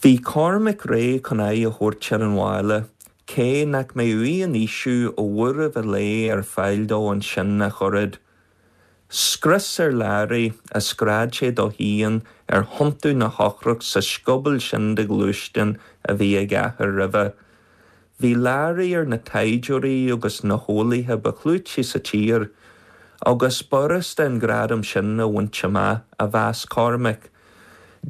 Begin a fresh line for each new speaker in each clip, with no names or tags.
Bhí Cormac réidh chun aghaidh a thabhairt ar an bhaile, cé nach mbeadh aon fhaoiseamh ó bhuaireamh an lae ar fáil dó ansin ach oiread. Scrios ar Larry, a scread sé dó féin ar thiontú na heochrach sa scioból sin de ghluaisteán a bhí ag a athair roimhe. Bhí Larry ar na taighdeoirí agus na heolaithe ba chlúití sa tír, agus b'fhurasta an gradam sin a bhaint amach, a mheas Cormac.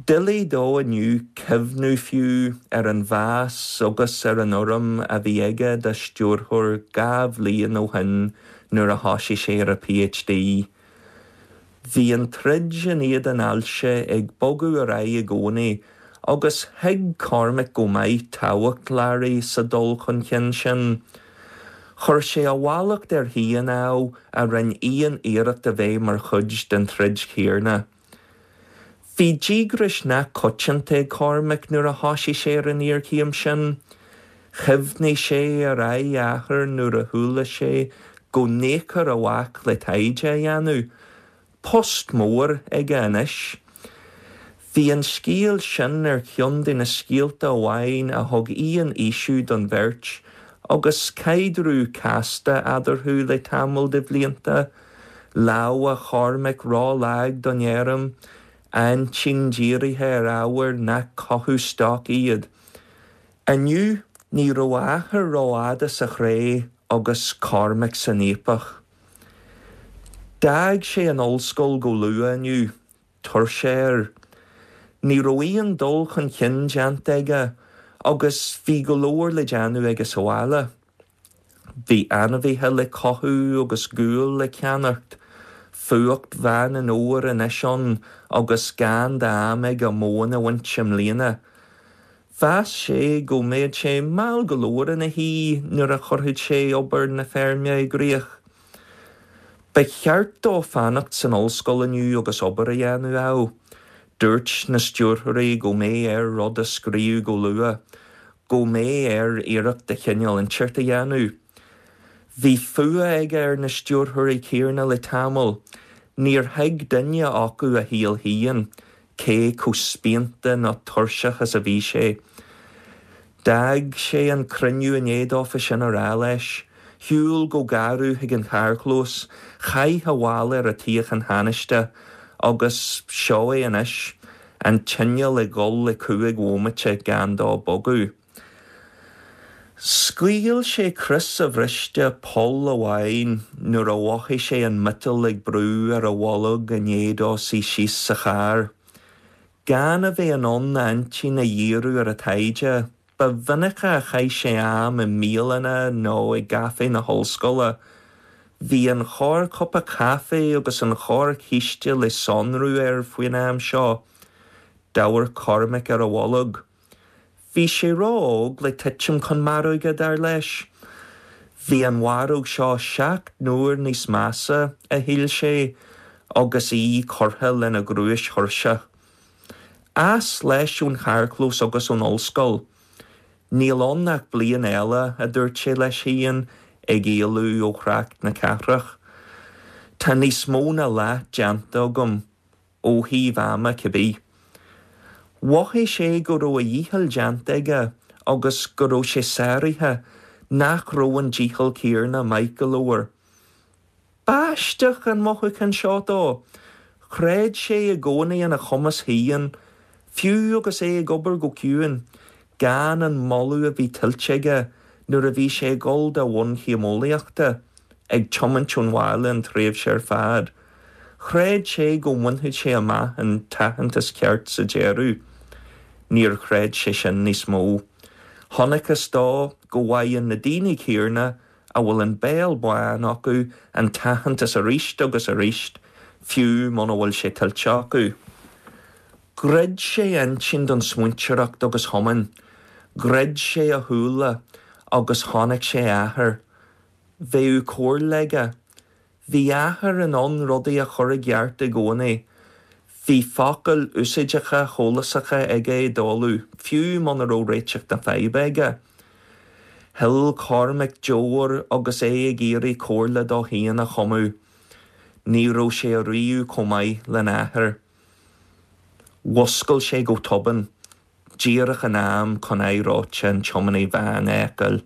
Doiligh dó inniu cuimhniú fiú ar an mheas agus ar an urraim a bhí aige dá stiúrthóir 2 bhliain ó shin nuair a thosaigh sé ar a PhD. Bhí an troid in éadan ailse ag bogadh ar aghaidh i gcónaí agus thuig Cormac go maith tábhacht Larry sa dul chun cinn sin. Chuir sé a mhallacht air féin, ámh, a rinne aon iarracht a bheith mar chuid den troid chéanna. Bhí díograis nach coitianta ag Cormac nuair a thosaigh sé ar an iarchéim sin. Chuimhnigh sé ar aghaidh a athar nuair a chuala sé go n-íocfar a mhac le taighde a dhéanamh. Post mór aige anois. Bhí an scéal sin ar cheann de na scéalta amháin a thug aon fhaoiseamh don bheirt agus caidreamh casta eadarthu le tamall de bhlianta. Lámha Chormaic ró-lag don fheirm, a intinn dírithe ar ábhair nach cothú stoc iad. Inniu, ní raibh a athair rófhada sa chré agus Cormac san fhaopach. D'fhág sé an ollscoil go luath inniu, tuirse air. Ní raibh aon dul chun cinn déanta aige agus bhí go leor le déanamh aige sa bhaile. Bhí ainmhithe le cothú agus gual le ceannacht. Fuacht Mheán an Fhómhair anois ann agus gan d'am aige móin a bhaint i mbliana. Mheas sé go mbeadh sé mall go leor ina shuí nuair a chuirfeadh sé obair na feirme i gcrích. Ba cheart dó fanacht san ollscoil inniu agus obair a dhéanamh, ámh. Dúirt na stiúrthóirí go mbeadh air rud a scríobh go luath. go mbeadh air iarracht de chineál inteacht a dhéanamh. Bhí fuath aige ar na stiúrthóirí céanna le tamall. Níor thuig duine acu a shaol féin, cé chomh spíonta nó tuirseach is a bhí sé. D'fhág sé an cruinniú i ndiaidh dófa sin a rá leis. Shiúil go garbh chuig an charrchlós, chaith a mhála ar an tsuíochán thánaiste agus seo é anois. An t-inneall ag dul le 5 bhomaite gan dó bogadh. Scaoil sé crios a bhriste poll amháin nuair a mhothaigh sé an miotal ag brú ar a bholg i ndiaidh dó suí síos sa charr. Gan a bheith in ann a intinn a dhíriú ar an taighde, Ba mhinice a chaith sé am i mbialanna nó i gcaifé na hollscoile. Bhí an chorrchupa caife agus an chorrchíste le sonrú air faoin am seo. D'amharc Cormac ar a bholg. Bhí sé ró-óg le titim chun maróige, dar leis. Bhí an mharóg seo 7 n-uair níos measa, a shíl sé, agus í curtha lena ghnúis thuirseach. As leis ón charrchlós agus ón ollscoil. Níl ann ach bliain eile, a dúirt sé leis féin, ag éalú ó thrácht na cathrach. Tá níos mó ná leath déanta agam, ó thaobh ama cibé. Mhothaigh sé go raibh a dhícheall déanta aige agus go raibh sé sáraithe, nach raibh an dícheall céanna maith go leor. B'aisteach an mothúchán seo dó. Chreid sé i gcónaí ina chumas féin, fiú agus é ag obair go ciúin, gan an moladh a bhí tuillte aige nuair a bhí sé ag dul dá bhunchéim eolaíochta, ag tiomáint ón bhaile an tréimhse ar fad. Chreid sé go mbainfeadh sé amach an t-aitheantas ceart sa deireadh. Níor chreid sé sin níos mó. Chonacthas dó go bhfaigheann na daoine céanna a bhfuil an béal bán acu an t-aitheantas arís agus arís, fiú muna bhfuil sé tuillte acu. Dhruid sé a intinn don smaointeoireacht agus thiomáin. Dhruid sé a shúile agus chonaic sé a athair. Bheadh comhairle aige. Bhí a athair in ann rudaí a chur i gceart i gcónaí. Bhí focail úsáideacha shólásacha aige i dtólamh, fiú muna raibh réiteach na faidhbe aige. Shil Cormac deoir agus é ag iarraidh comhairle dó féin a chumadh. Ní raibh sé ariamh chomh maith lena athair. Mhuscail sé go tobann. díreach in am chun aghaidh reoite an tiománaí veain a fheiceáil.